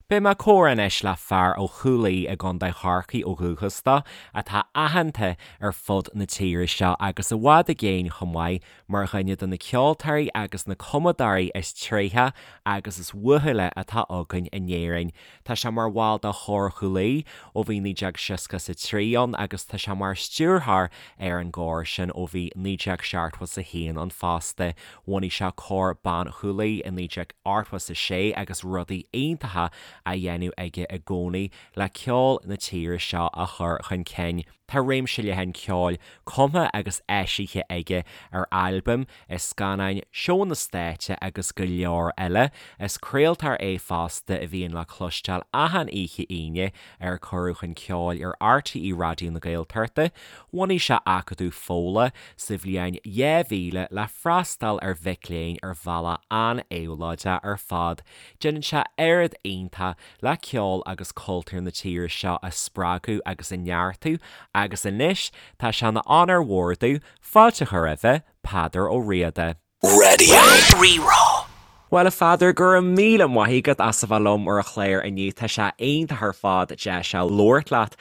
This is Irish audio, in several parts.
Beidh mé ag comhrá anois le fear ó Chúil Aodha i gContae Chorcaí ó dhúchas dó, atá aitheanta ar fud na tíre seo agus i bhfad i gcéin chomh maith mar dhuine de na ceoltóirí agus na cumadóirí is tréithe agus is uathúla atá againn in Éirinn. Tá sé mar bhall de Chór Chúil Aodha ó bhí 1963 ann agus tá sé mar stiúrthóir ar an gcór sin ó bhí 1971 ann fosta. Bhunaigh sé Cór Ban Chúil Aodha i 1986 agus rudaí iontacha á dhéanamh aige i gcónaí le ceol na tíre seo a chur chun cinn. Tá réimse leathan ceoil cumtha agus eisithe aige ar albaim, i scannáin, seónna stáitse agus go leor eile. Is craoltóir é fosta a bhíonn le cloisteáil achan oíche Aoine ar Cuireadh Chun Ceoil ar RTÉ Raidió na Gaeltachta. Bhunaigh sé Acadamh Fódhla sa bhliain 2000 le freastal ar mhic léinn ar bhealach an-éabhlóideach ar fad. Déanann sé oiread iontach le ceol agus cultúr na tíre seo a spreagadh agus a neartú agus anois tá sé ina onóir mhór domh fáilte a chur roimhe, Peadar Ó Riada. Radio Rí-Rá. Bhuel a Pheadair, go raibh míle maith agat as a bheith liom ar an chlár inniu. Tá sé iontach ar fad deis a labhairt leat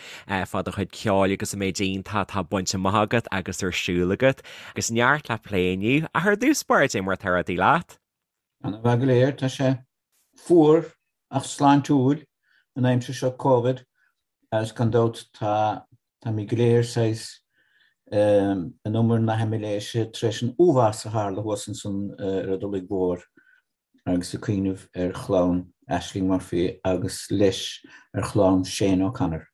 fá do chuid ceoil agus an méid iontach atá bainte amach agat agus ar siúl agat. Agus neart le plé inniu. Ach ar dtús báire, cad é mar atá rudaí leat? Ana mhaith go léir. Tá sé fuar ach sláintiúil an aimsir seo Covid agus gan dabht tá táimid go léir saghas in umar na haimiléise tar éis an uafás a tharla thuas ansan ar an Tulaigh Mhór agus ag cuimhneamh ar chlann Ashling Murphy agus leis ar chlann Shane O'Connor.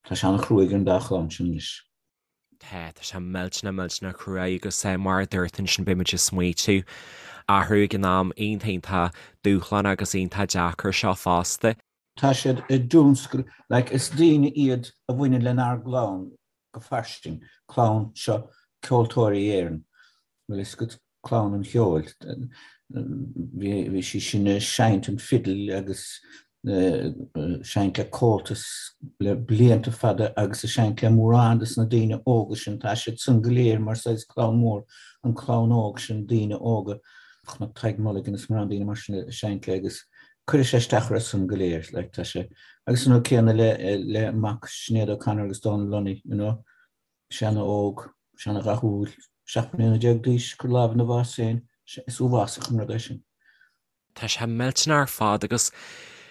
Tá sé an-chruaidh ar an dá chlann sin anois. Tá, tá sé millteanach, millteanach cruaidh agus mar a dúirt ansin beidh muid ag smaoitiú orthu ag an am iontach, iontach dúshlánach agus iontach deacair seo fosta. Tá siad i dtionscal, like is daoine iad a bhaineann lenár gclann go fairsing, clann seo Ceoltóirí Éireann, bhfuil fhios agat, clann an cheoil. Bhí sí sin ag seinnt an fidil agus seinnt le Comhaltas le blianta fada agus ag seinnt le mórán de na daoine óga sin, tá siad san go léir mar saghas clann mhór, an clann óg sin, daoine óga, chonac Tadhg Mulligan is mórán daoine mar sin ag seinnt le agus cuirfidh sé isteach orthu san go léir, like tá sé, agus an rud céanna le le mac Sinéad O'Connor agus Dónal Lunny, you know, sé ana-óg, sé ana-dhathúil, 17 mbliana d'aois, cur lámh ina bhás féin, is uafásach an rud é sin. Tá sé millteanach ar fad agus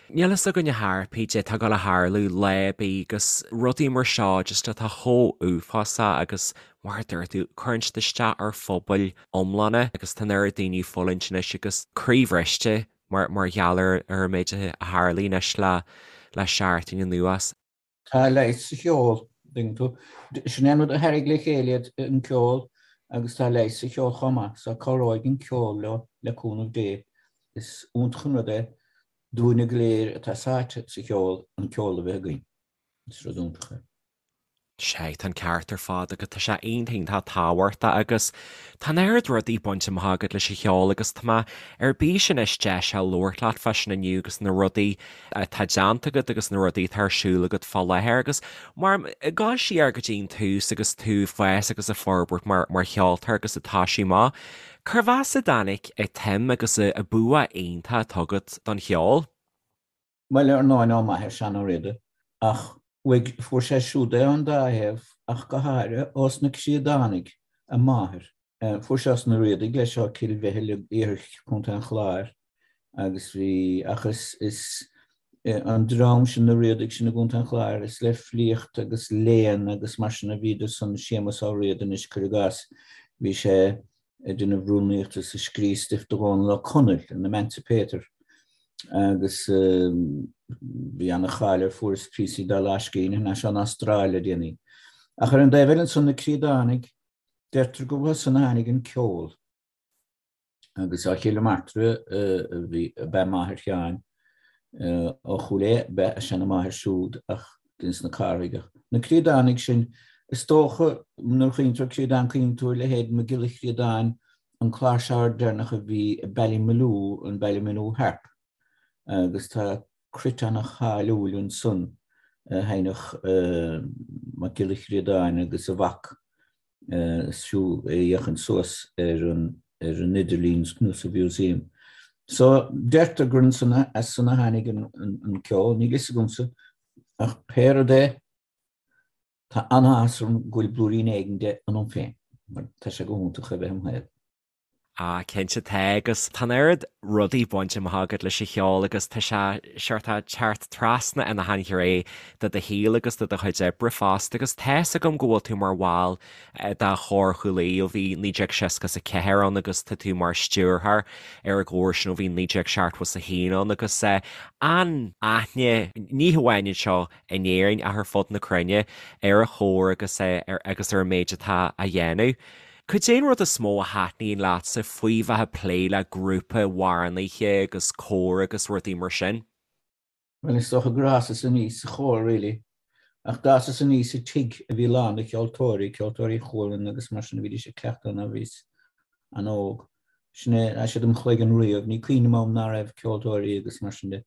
níl fhios againn ar chor ar bith cad é atá ag dul a tharlú lá ar bith agus rudaí mar seo just atá chomh uafásach agus mar a dúirt tú, cuireann siad isteach ar phobail iomlána agus tá an oiread daoine ag fulaingt anois agus croíbhriste mar mar gheall ar ar an méid a tharlaigh anois le le seachtain anuas. Tá leigheas sa cheol, tuigeann tú. Sin é an rud a tharraing le chéile iad, an ceol, agus tá leigheas sa cheol chomh maith, so cabhróidh an ceol leo, le cúnamh Dé. Is iontach an rud é dúinne go léir atá sáite sa cheol, an ceol a bheith againn. Is rud iontach é. Sea, tá an ceart ar fad agat, tá sé iontach iontach tábhachtach agus tá an oiread rudaí bainte amach agat leis an cheol agus tá mé ar bís anois deis a labhairt leat fá sin inniu agus na rudaí atá déanta agat agus na rudaí atá ar siúl agat fá láthair agus mar ag dul siar go dtí an tús agus tú ag fás agus ag forbairt mar mar cheoltóir agus ag toisiú amach, cérbh as a dtáinig an tsuim agus an bua iontach atá agat don cheol? Bhuel, ar ndóigh, ó m'athair, Seán Ó Riada, ach uaidh, fuair sé siúd é ón dá thaobh, ach go háirithe ós na Críodánaigh, a máthair. Fuair sé os na Riadaigh leis ó Cill Mhichíl i iarthar Chontae an Chláir agus bhí, ach is, is an dream sin, na Riadaigh sin i gContae an Chláir, is le filíocht agus léann agus mar sin a bhíodar san, Séamus Ó Riada anois, cuir i gcás, bhí sé ag déanamh rúnaíochta is ag scríobh stuif do Dhónall Ó Conaill, an Emancipator, agus bhí ana-cháil air, fuarthas píosaí dá lámhscríbhinn thar n-ais ón Astráil le déanaí. Ach ar an dtaobh eile ansan, na Críodánaigh, deirtear gur uathu san a tháinig an ceol, agus ó Chill Martra a bhí, ab ea máthair Sheáin, Ó Chúil Aodha ab ea a seana-mháthair siúd ach ins na Carthaigh. Ach na Críodánaigh sin, is dócha, nuair a chuimhníonn tú ar Críodán cuimhníonn tú ar leithéid Mac Giolla Chríodáin, an cláirseoir deireanach a bhí i Ballymaloe, an Ballymaloe Harp, agus tá cruit ana-cháiliúil ansan a sheinneadh Mac Giolla Chríodáin agus a mhac. Is fiú é a fhéachaint suas ar an ar an idirlíon nó sa mhúsaem. So, deirtear gur ansan, as san a tháinig an ceol, níl fhios agamsa, ach pé rud é, tá an-áthas orm go bhfuil blúirín éigin de ionam féin, mar tá sé go hiontach a bheith im shaol. Ah, cinnte tá, agus tá an oiread rudaí bainte amach agat leis an cheol agus tá sé seort ag teacht trasna ina shainghné de do shaol agus de do chuid oibre fosta agus tá's agam go bhfuil tú mar bhall de Chór Chúil Aodha ó bhí 1964 ann agus tá tú mar stiúrthóir ar an gcór sin ó bhí 1971 ann agus an-aithne ní hamháin anseo in Éirinn ach ar fud na cruinne ar an chór agus agus ar an méid atá á dhéanamh. Cad é an rud is mó a thaitníonn leatsa faoi bheith ag plé le grúpa amhránaithe agus cór agus rudaí mar sin? Bhuel, is dócha gur fhásas aníos sa chór, really. Ach d'fhásas aníos i tigh a bhí lán de cheoltóirí, Ceoltóirí Chualann agus mar sin, a bhídís ag cleachtadh nuair a bhíos an-óg. Sin é, tá siad im chloigeann riamh. Ní cuimhin liom am ná raibh ceoltóirí agus mar sin de.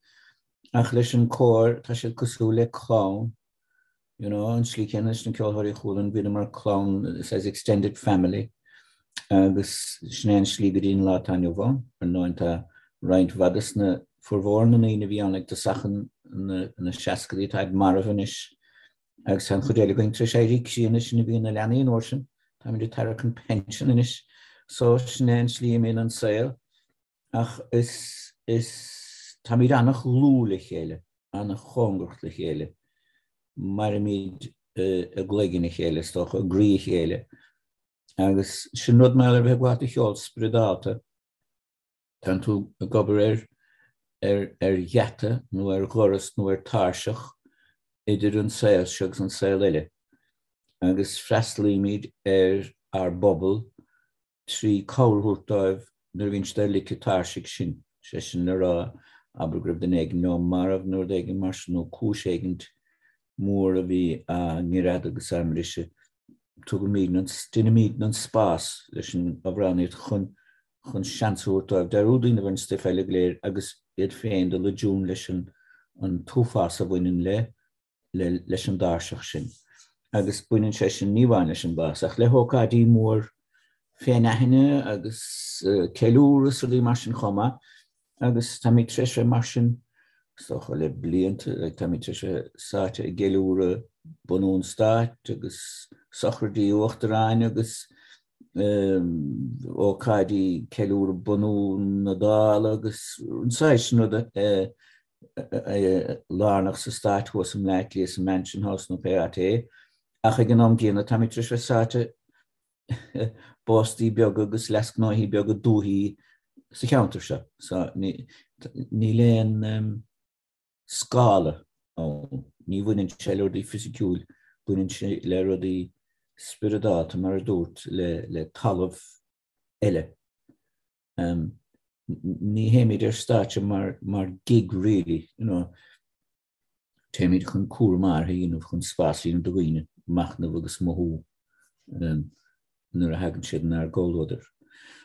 Ach leis an cór, tá siad cosúil le clann. You know, an slí céanna leis na Ceoltóirí Chualann, bhíodar mar clann, saghas extended family, agus sin é an slí go dtí an lá atá inniu ann. Ar ndóigh, tá roinnt mhaith de sna, formhór na ndaoine a bhí ann ag tosach na seascadaí, táid marbh anois, agus tá an chuid eile againn tar éis éirí críonna, sinn a bhí ina leanaí an uair sin, táimid ag tarrac an pension anois, so sin é an slí a mbíonn an saol. Ach is, is, táimid an-dhlúth le chéile, an-chóngarach le chéile. Mairimid i gcloigeann a chéile, is dócha, i gcroí a chéile. Agus sin rud mar a bheith ag gabháil do cheol spioradálta. Tánn tú ag obair ar, ar, ar gheata nó ar dhoras nó ar tairseach idir an saol seo agus an saol eile. Agus freastalaímid ar ár bpobal 3 cabhair a thabhairt dóibh nuair a bhíonn siad ar lic an tairsigh sin, sé sin le rá, abair go raibh duine éigin leo marbh nó rud éigin mar sin, nó cúis éigin mór a bhí á ngreadadh agus á mbriseadh, tugaimid an, deinimid an spás leis an amhránaíocht chun, chun seans a thabhairt dóibh dearúd a dhéanamh ar an stuif eile go léir agus iad féin dul i dtiún leis an, an t-uafás a bhaineann le leis an dtairseach sin. Agus baineann sé sin ní amháin leis an bhás, ach le hócáidí mór féinaithne agus ceiliúradh is rudaí mar sin chomh maith. Agus táimid tar éis bheith mar sin, is dócha, le blianta, táimid tar éis bheith sáite i gceiliúradh bunú an stáit agus sochraidí uachtaráin agus ócáidí ceiliúradh bunú na Dála agus an saghas sin ruda lárnach sa stát thuas i mBleá Cliath sa Mansion House nó pé áit é, ach ag an am gcéanna táimid tar éis bheith sáite i bpóstaí beaga agus leasghnóthaí beaga dúthaí sa cheantar seo. So níl aon scála ann. Ní bhaineann sé le rudaí fisiciúil, baineann sé le rudaí spioradálta mar a dúirt, le talamh eile. Ní théimid ar stáitse mar mar gig really, you know. Téimid chun cúram áirithe a dhéanamh, chun spás a dhéanamh do dhaoine machnamh agus mothú nuair a thagann siad inár gcomhluadar.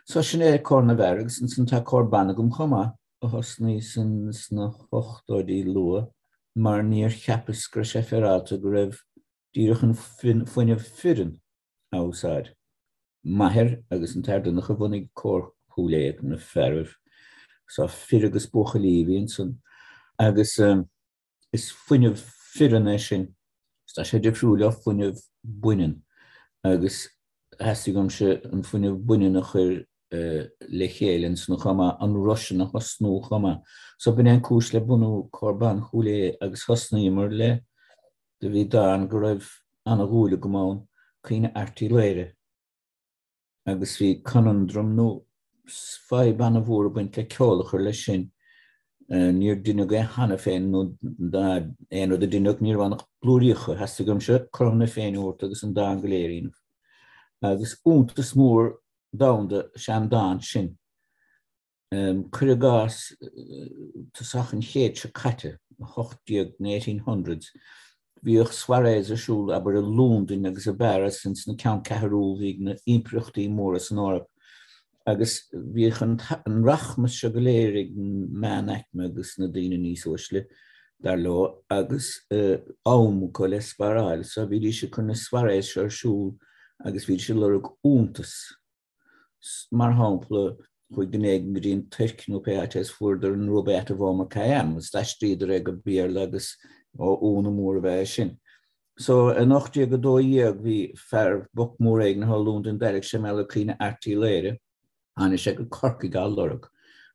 So sin é Cór na bhFear agus ansan tá cór ban agam chomh maith a thosnaigh san sna hochtóidí luath mar níor cheapas go raibh sé féaráilte go raibh díreach an fuinneamh fireann á úsáid. M'athair agus an tAthair Donncha a bhunaigh Cór Chúil Aodha, na fearaibh. So fir agus buachaillí a bhí ansan. Agus is fuinneamh fireann é sin. Tá sé difriúil ó fuinneamh baineann. Agus theastaigh uaimse an fuinneamh baineann a chur le chéile ansan chomh maith, an roth sin a thosnú chomh maith. So b'in é an cúis le bunú Cór Ban Chúil Aodha agus thosnaíomar le Do bhí dán go raibh ana-dhúil agam ann, Caoineadh Airt Uí Laoghaire, agus bhí conundrum nó fadhb ana-mhór ag baint le ceol a chur leis sin. Níor deineadh é cheana féin nó aon rud a deineadh ní raibh ann ach blúiríocha. Theastaigh uaimse cothrom na Féinne a thabhairt agus an dán go léir a dhéanamh. Agus iontas mór domhanda is ea an dán sin. Cuir i gcás, tosach an chéid seo caite, 18, na 1800s, bhíodh soirees ar siúl, abair, i Londain agus i bPáras, ins na ceanncheathrú a bhí ag na impireachtaí móra san Eoraip, agus bhíodh an rachmas seo go léir ag an meánaicme agus na daoine níos uaisle, dar leo, agus am acu le sparáil, so bhídís ag cur na soirees seo ar siúl agus bhídís ag lorg iontas. Mar shampla. Chuaigh duine éigin go dtí an Tuirc nó pé áit é is fuaireadar an Rubaiyat of Omar Khayyam agus d'aistríodar é go Béarla agus ó ionadh mór ab ea é sin. So in 1812 bhí fear boc mór éigin thall i Londain d'airigh sé mar gheall ar Caoineadh Airt Uí Laoghaire. Tháinig sé go Corcaigh á lorg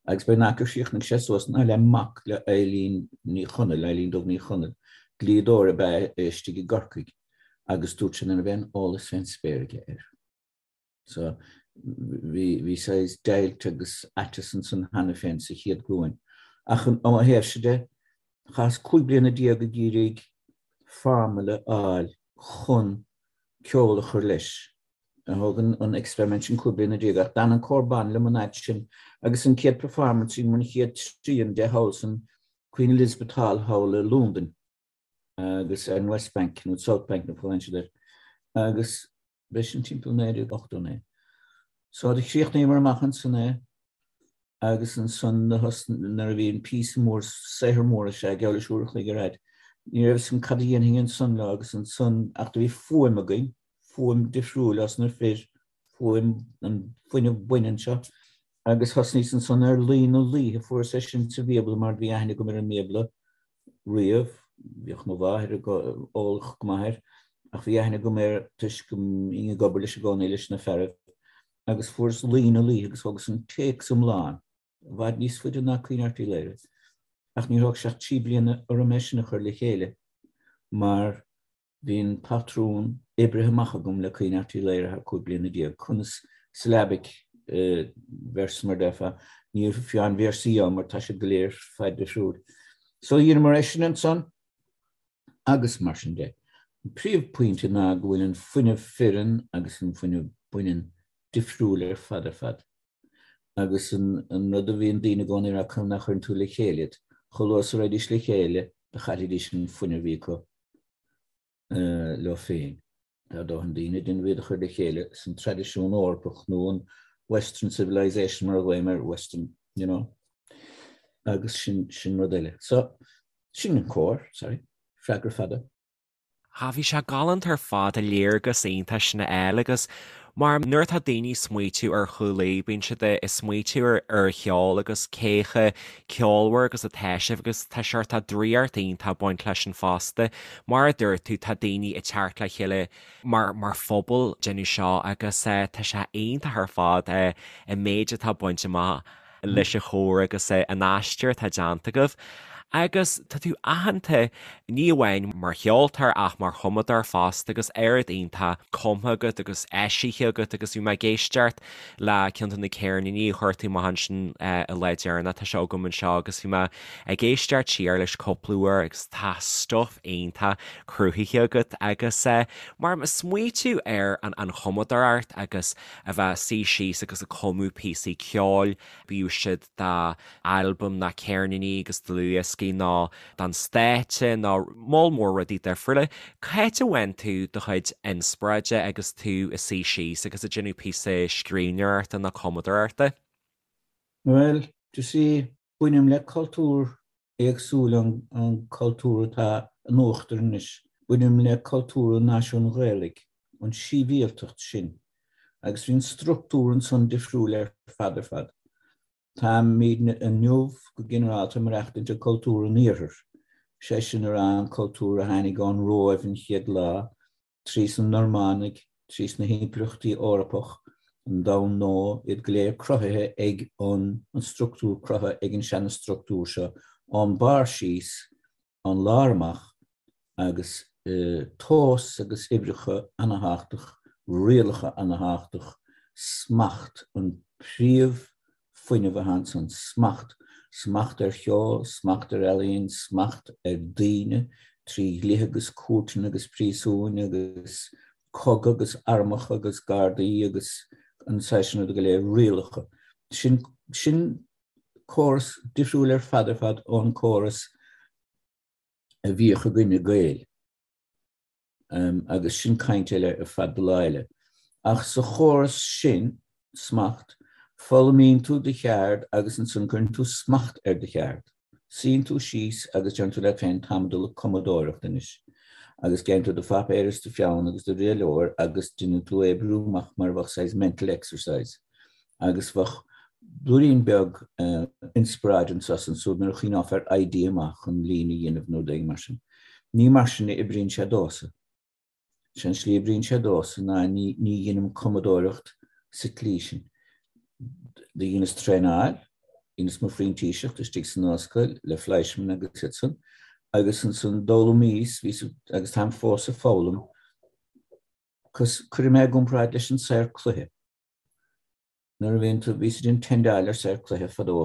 agus b'é an fhaca chríochnaigh sé suas ná le mac le Eilín Ní Chonaill, Eilín Dubh Ní Chonaill, dlíodóir ab ea é istigh i gCorcaigh agus dúirt sé nach raibh aon eolas fén spéir aige air. So bhí, bhí saghas deighilt agus aiteas ansan cheana féin sa chéad ghlúin. Ach ó mo thaobhse de, chaitheas 15 bliana ag iarraidh formula a fháil chun ceol a chur leis. Thóg an experiment sin 15 bliana ach d'fhan an cór ban liom an fhad sin agus an chéad performance sin, an chéad trian de thall san Queen Elizabeth Hall thall i Londain agus ar an West Bank nó South Bank nó fálann siad air agus B'é sin timpeall 1989. So do chríochnaíomar amach ansan é agus ansan nuair a bhí an píosa mór, saothar mór is ea, geall leis uair a chloig ar fhad, ní raibh fhios agam cad a dhéanfainn ansan leo agus ansan, ach do bhí fuaim againn, fuaim difriúil as na fir, fuaim, an fuinneamh baineann seo. Agus thosnaíos ansan ar Laoi na Laoithe, fuaireas é sin sa Bhíobla mar bhí aithne agam ar an mBíobla riamh, bhíodh mo mháthair eolach go maith air, ach bhí aithne agam air toisc go mbínn ag obair leis i gcónaí leis na fearaibh, agus fuaireas Laoi na Laoithe agus thógas an téacs iomlán, i bhfad níos faide ná Caoineadh Airt Uí Laoghaire, ach níor thóg sé ach 3 bliana orm é sin a chur le chéile, mar Bhí an patrún oibrithe amach agam le Caoineadh Airt Uí Laoghaire thar 15 bliana. Conas syllabic verse mar déarfá. Níl fiú aon véarsaí ann mar tá siad go léir fad difriúil. So dheineamar é sin ansan agus mar sin de. An príomhphointe ná go bhfuil an fuinneamh fireann agus an fuinneamh baineann difriúil ar fad ar fad. Agus an rud a bhíonn daoine i gcónaí ag rá conas nach chuireann tú le chéile iad. Chomh luath is a raghaidís le chéile do chaillfidís an fuinneamh a bhí acu. leo féin. Tá dóthain daoine ag déanamh iad a chur le chéile san traidisiún Eorpach nó an Western civilization mar a ghlaoim air, Western, you know, agus sin, sin rud eile. So, sin an cór, sorry, freagra fada. Ah, bhí sé galánta ar fad, an léargas iontach sin a fháil agus mar nuair atá daoine ag smaoitiú ar Chúil Aodha, bíonn siad ag smaoitiú ar ar cheol agus cé chomh ceolmhar agus atá sibh agus tá seort draíocht iontach ag baint leis sin fosta. Mar a dúirt tú, tá daoine ag teacht le chéile mar mar phobal ag déanamh seo agus tá sé iontach ar fad an méid atá bainte amach leis an chór agus an aistear atá déanta agaibh. Agus tá tú aitheanta ní amháin mar cheoltóir ach mar chumadóir fosta agus oiread iontach cumtha agat agus eisithe agat agus bhí mé ag éisteacht le ceann de na ceirníní a chuir tú amach ansin an lá deireanach, tá sé agam anseo agus bhí mé ag éisteacht siar leis cúpla uair agus tá stuif iontach cruthaithe agat agus mar smaoitiú ar an chumadóireacht agus a bheith ag suí síos agus ag cumadh píosaí ceoil, bíodh siad d'albaim ná ceirníní agus dlúthdhioscaí nó don stáitse nó moll mór rudaí difriúla. Cá háit a bhfaigheann tú do chuid inspioráide agus tú ag suí síos agus ag déanamh píosa scríbhneoireachta nó cumadóireachta? Bhuel, you see, bainim le cultúr éagsúil ón cultúr atá in uachtar anois. Bainim le cultúr an náisiúin Ghaelaigh, an síbhialtacht sin, agus bhí an structúr ansan difriúil ar fad ar fad. Táimidne inniu go ginearálta ag maireachtaint i cultúr an Iarthair, sé sin a rá an cultúr a tháinig ón Róimh an chéad lá, trí sna Normánaigh, trí sna himpireachtaí Eorpach, an Domhan Nua, iad go léir cruthaithe ag an an structúr cruthaithe ag an seana-structúr seo, ón barr síos, ón lár amach, agus tomhas agus uimhreacha ana-thábhachtach, rialacha ana-thábhachtach, smacht an príomh fuinneamh atá ansan, smacht, smacht ar cheol, smacht ar ealaín, smacht ar daoine trí dhlíthe agus cúirteanna agus príosúin agus cogadh agus armacha agus gardaí agus an saghas sin ruda go léir, rialacha. Sin, sin córas difriúil ar fad ar fad ón córas a bhíodh againne Gaeil. Agus sin caint eile ar fad do lá eile. Ach sa chóras sin, smacht, foghlaimíonn tú do cheard agus ansan cuireann tú smacht ar do cheard. Suíonn tú síos agus deireann tú leat féin táim ag dul ag cumadóireacht anois. Agus gheibheann tú do phaipéar is do pheann agus do rialóir agus déanann tú é a oibriú amach mar a bheadh saghas mental exercise. Agus bheadh. Blúirín beag inspioráid anso is ansúd nuair a chuimhneofá ar idea maith chun líne a dhéanamh nó rud éigin mar sin. Ní mar sin a oibríonn sé domhsa. Sé an slí a oibríonn sé domhsa ná ní dheinim cumadóireacht sa tslí sin. Do dheineas traenáil, dheineas mo phrintíseacht istigh san ollscoil le Fleischmann agus iad san, agus ansan d'fhoghlaimíos, bhíos agus táim fós ag foghlaim, cos cuirfidh mé i gcomparáid leis an saor cloiche. Nuair a bhíonn tú, bhíos ag déanamh tendáil ar saor cloiche fadó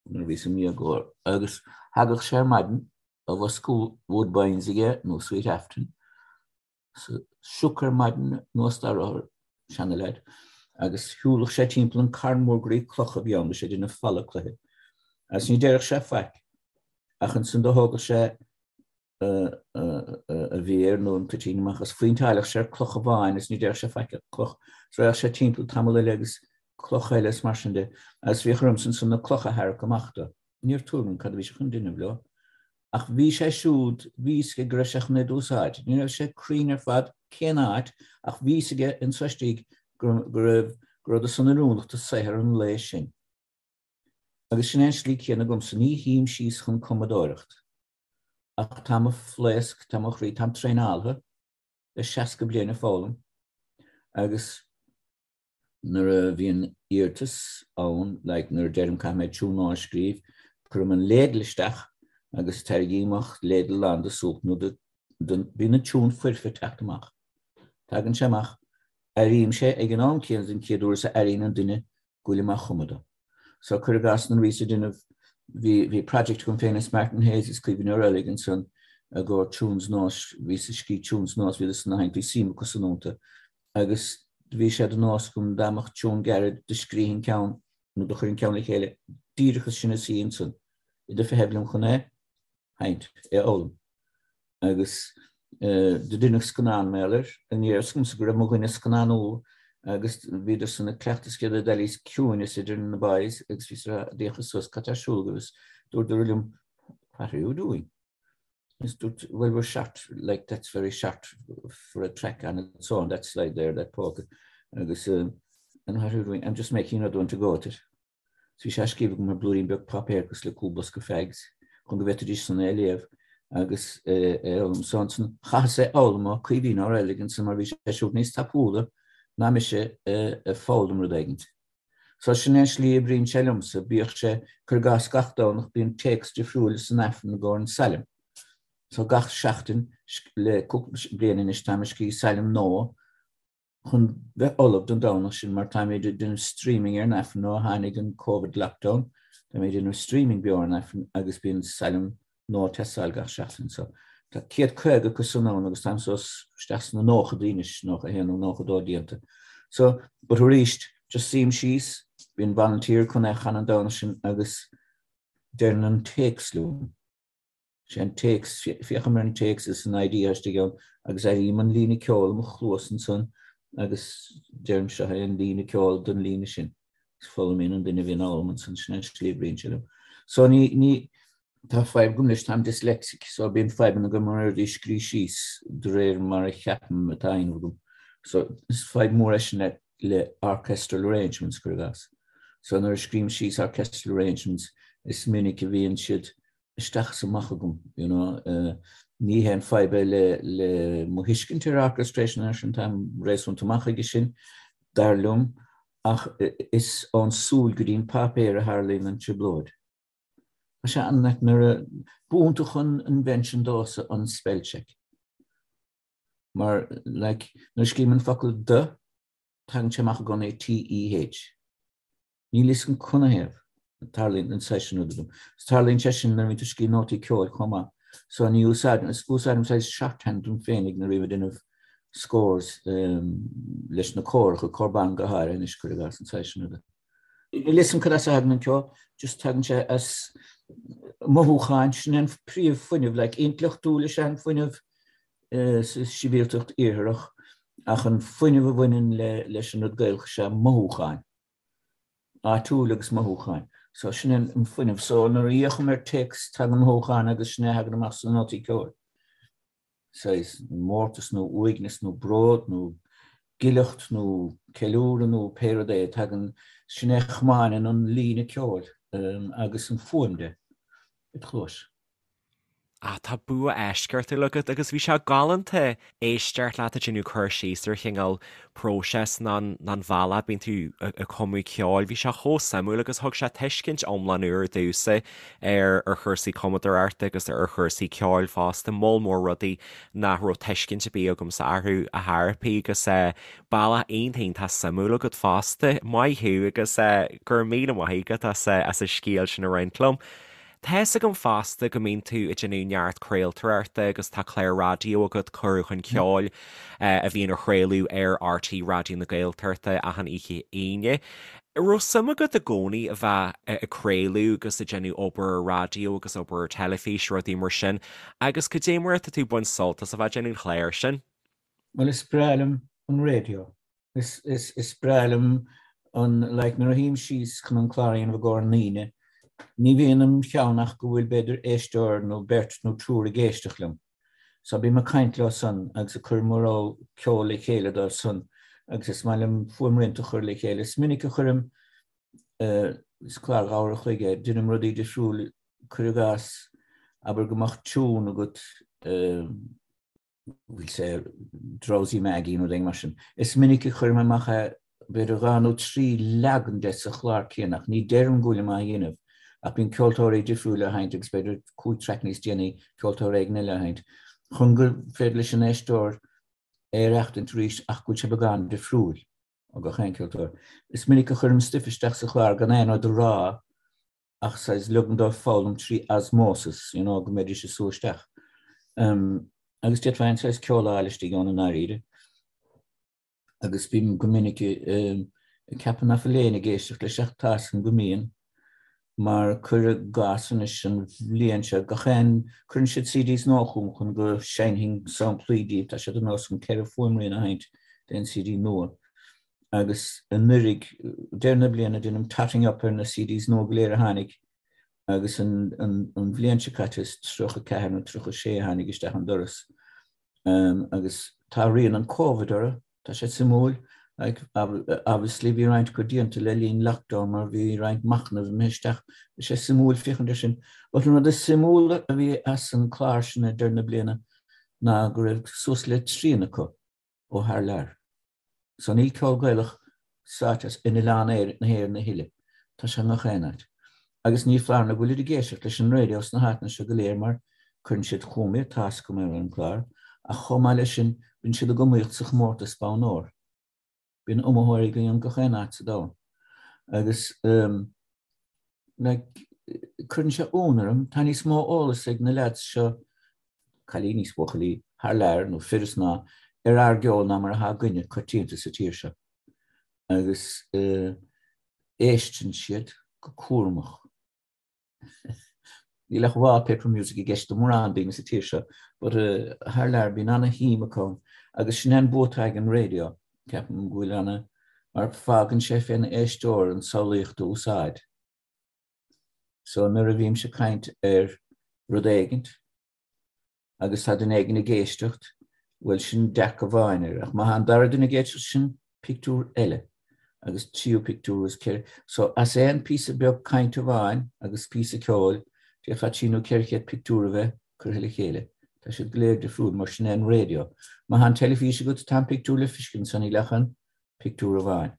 nuair a bhíos im dhéagóir agus thagadh sé ar maidin, a bhosca Woodbines aige nó Sweet Afton, sioc ar maidin anuas dá rothar, seana-leaid, agus shiúlfadh sé timpeall an carn mór groí cloch a bhí ann, bhí sé ag déanamh falla cloiche, agus ní déarfadh sé faic, ach ansan do thógadh sé a mhéar nó an toitín amach agus phointeáilfeadh sé ar cloch amháin agus ní déarfadh sé faic ach cloch, is raghadh sé timpeall tamall eile agus cloch eile is mar sin de, agus bhíodh ormsa ansan na clocha a tharrac amach dó. Ní raibh tuairim agam cad a bhí sé chun déanamh leo. Ach bhí sé siúd, bhí fhios aige go raibh sé chun iad a úsáid. Ní raibh sé cruinn ar fad cén áit ach bhí fhios aige anso istigh go raibh, go rabhadar san oiriúnach do saothar an lae sin. Agus sin é an slí céanna agamsa, ní shuím síos chun cumadóireacht. Ach tá mo phlaosc, tá mo chroí, táim traenáilte le 60 bliain ag foghlaim agus nuair a bhíonn iarratas ann, like nuair a deirim caithfidh mé tiún nua a scríobh, cuirim an ladle isteach agus tarraingím amach ladle lán de súp nó de, de, bíonn an tiún foirfe ag teacht amach. Tagann sé amach, airím sé ag an am céanna den chéad uair is a airíonn an duine go bhfuilim á chumadh dó. So cuir i gcás nuair a bhíos ag déanamh, bhí, bhí project agam féin is Martin Hayes is Caoimhín Ó Raghallaigh ansan i gcomhair tunes nós, bhíos ag scríobh tunes nós, bhíodar san á sheinnt, bhí suim acu san iontu agus do bhí sé de nós agam dá mbeadh tiún gairid do scríobhainn ceann nó do chuirfinn ceann le chéile díreach as sin a suí ansan iad ag feitheamh liom chun é sheinnt, é a fhoghlaim. Agus do deineadh scannán mar gheall air, ní raibh fhios agamsa go raibh mo dhuine ag scannánú agus bhíodar san ag cleachtadh is céad d'éiríos ciúineas idir na boys agus bhíos ag rá d'fhéachas suas cad tá ar siúl agaibh is dúradar liom what are you doing? Is dúirt well we're short like that's very short for a track on its own that slide there that polka agus uh, and what are you doing? I'm just making another one to go at it. So bhí sé á scríobh agam ar blúirín beag páipéir cosúil le cúl bosca fags chun go bhféadfaidís san é a léamh agus é a fhoghlaim. So ansan chaitheas é a fhoghlaim ó Caoimhín Ó Raghallaigh ansan mar bhí sé siúd níos tapúla ná mise ag foghlaim rud éigint. So sin é an slí a oibríonn sé liomsa, bíodh sé, cuir i gcás gach Domhnach bíonn téacs difriúil san Aifreann i gcomhair an sailm. So gach seachtain le cúpla bliain anois táim ag scríobh sailm nua chun bheith ullamh don Domhnach sin mar táimid ag déanamh streaming ar an Aifreann ó tháinig an Covid lockdown, táimid ag déanamh streaming beo ar an Aifreann agus bíonn sailm nua ag teastáil gach seachtain so tá 150 acu san ann agus táim suas isteach sna nóchadaí anois, 91 nó 92 déanta. So, but arís, just suím síos, bíonn volunteer chun é a chanadh an Domhnach sin agus deireann an téacs liom. Sé an téacs, féachaim ar an téacs is an idea istigh ann agus airím an líne ceoil i mo chluas ansan agus deirim seo é an líne ceoil don líne sin. Is foghlaimíonn an duine a bhíonn á fhoghlaim ansan, sin an slí a oibríonn sé liom. So ní, ní, Tá fadhb agam leis, táim dyslexic, so bíonn fadhbanna agam ar rudaí a scríobh síos de réir mar a cheapaim atá á dhéanamh agam. So is fadhb mór é sin le le orchestral arrangements, cuir i gcás. So nuair a scríobhaim síos orchestral arrangements, is minic a bhíonn siad isteach is amach agam, you know. Ní haon fadhb é le le mo thuiscint ar orchestration ar sin, táim réasúnta maith chuige sin, dar liom, ach is ón súil go dtí an páipéar a tharlaíonn an trioblóid. Tá sé an-ait nuair a b'iontach an invention domhsa an spell check. Mar, like, nuair a scríobhaim an focal the, tagann sé amach i gcónaí T-E-H. Níl fhios agam canathaobh a tarlaíonn an saghas sin rud agam. Is tarlaíonn sé sin nuair a bhíonn tú ag scríobh nótaí ceoil chomh maith. So ní úsáidim, is úsáidim saghas shorthand dom féinig nuair a bhím ag déanamh scores leis na córacha, cór ban go háirithe anois, cuir i gcás, an saghas sin ruda. Níl fhios agam cad as a thagann an ceol, just tagann sé as mothúcháin, sin an príomh-fhuinneamh, like intleachtúil is ea an fuinneamh sa sibhialtacht iartharach ach an fuinneamh a bhaineann leis an rud Gaelach is ea mothúcháin, áitiúil agus mothúcháin. So sin an fuinneamh. So nuair a fhéachaim ar téacs tagann mothúcháin agus sin é a thagann amach sna nótaí ceoil. Saghas mórtas nó uaigneas nó bród nó. Gileacht nó ceiliúradh nó pé rud é, tagann, sin é a chomáineann an líne ceoil agus an fuaim de id chluais. Ah, tá bua eisceachtúil agat agus bhí sé galánta éisteacht leat ag déanamh cur síos ar chineál próiseas ná an bhealach a bíonn tú ag cumadh ceoil. Bhí sé chomh suimiúil agus thug sé tuiscint iomlán úr domhsa ar ar chúrsaí cumadóireachta agus ar chúrsaí ceoil fosta, moll mór rudaí nach raibh tuiscint ar bith agamsa orthu ar chor ar bith agus bealach iontach iontach suimiúil agat fosta. Maith thú agus go raibh míle maith agat as as an scéal sin a roinnt liom. Tá fhios agam fosta go mbíonn tú ag déanamh neart craoltóireachta agus tá clár raidió agat, Cuireadh Chun Ceoil, a bhíonn á chraoladh ar RTÉ Raidió na Gaeltachta achan oíche Aoine. An raibh suim agat i gcónaí a bheith ag craoladh agus ag déanamh obair ar raidió agus obair ar teilifís, rudaí mar sin, agus cad é mar atá tú ag baint sult as a bheith ag déanamh an chláir sin? Bhuel, is breá liom an raidió. Is, is, is breá liom an, like, nuair a shuím síos chun an clár a dhéanamh i gcomhair na ndaoine, ní bhíonn im cheann ach go bhfuil b'fhéidir éisteoir nó beirt nó triúr ag éisteacht liom. So bím ag caint leo san agus ag cur mo rogha ceoil le chéile dóibh san agus is maith liom fuaimrianta a chur le chéile. Is minic a chuirim, eh, is clár dhá uair a chloig é, deinim rudaí difriúil, cuir i gcás, abair go mbeadh tiún agat, eh, we'll say Drowsy Maggie nó rud éigin mar sin. Is minic a chuirim amach é b'fhéidir dhá nó trí leagan de sa chlár céanna ach ní deirim go bhfuilim á dhéanamh ach bíonn ceoltóirí difriúla á sheinnt agus b'fhéidir cúig traic níos déanaí ceoltóir éigin eile á sheinnt chun gur féidir leis an éisteoir é a aireachtaint arís ach go bhfuil sé beagán difriúil ó gach aon ceoltóir. Is minic a chuirim stuif isteach sa chlár gan aon rud a rá ach saghas ligim dóibh foghlaim trí osmosis, you know, go mbeidís ag sú isteach. Um, agus d'fhéadfá aon saghas ceol a fháil istigh ann i ndáiríre. Agus bím go minic um, ag ceapadh nach bhfuil éinne ag éisteacht leis ach tá 'fhios agam go mbíonn, mar cuir i gcás anois an bhliain seo, gach aon, cuireann siad CDs nua chugam chun go seinnfinn samplaí díobh, tá sé de nós agam ceithre fuaimrian a sheinnt d'aon CD nua. Agus anuraidh, deireadh na bliana, déanaim totting up ar na CDs nua go léir a tháinig agus an bhliain seo caite is 34 nó 36 a tháinig isteach an doras. Agus tá rian an Covid orthu, tá sé suimiúil. Like, obviously bhí roinnt acu déanta le linn lockdown mar bhí roinnt machnaimh imithe isteach. Tá sé suimiúil féachaint air sin. But an rud is suimiúla a bhí as an clár sin ag deireadh na bliana ná go raibh suas le trian acu ó thar lear. So níl ceol Gaelach sáite in oileán na hÉireann a thuilleadh. Tá sé i ngach aon áit. Agus ní foláir nó go bhfuilid ag éisteacht leis an raidió sna háiteanna seo go léir mar cuireann siad chugam iad, tá 'fhios agam ar an gclár, ach chomh maith leis sin bíonn siad ag iomaíocht sa chomórtas Bonn Óir. Bíonn iomaitheoirí againn i ngach aon áit sa domhan. Agus like, cuireann sé ionadh orm, tá níos mó eolas ag na leaids seo cailíní is buachaillí thar lear, nó fir is mná, ar ár gceol ná mar atá againne coitianta sa tír seo. Agus éisteann siad go cúramach. Níl ach wallpaper music i gceist do mórán daoine sa tír seo, but thar lear bíonn ana-shuim acu ann. Agus sin é an bua atá ag an raidió, ceapaim go bhfuil ana, mar fágann sé fén éisteoir an tsamhlaíocht a úsáid. So nuair a bhímse ag caint ar rud éigint agus tá duine éigin ag éisteacht, bhuel sin dearcadh amháin air, ach má tá an dara duine ag éisteacht sin pictiúr eile agus tríú pictiúr is ceithre. So as aon píosa beag cainte amháin agus píosa ceoil, d'fhéadfá trí nó 400 pictiúr a bheith curtha le chéile. Tá siad go léir difriúil mar sin é an raidió. Má tá an teilifís agat tá an pictiúr le feiscint so níl ach an pictiúr amháin.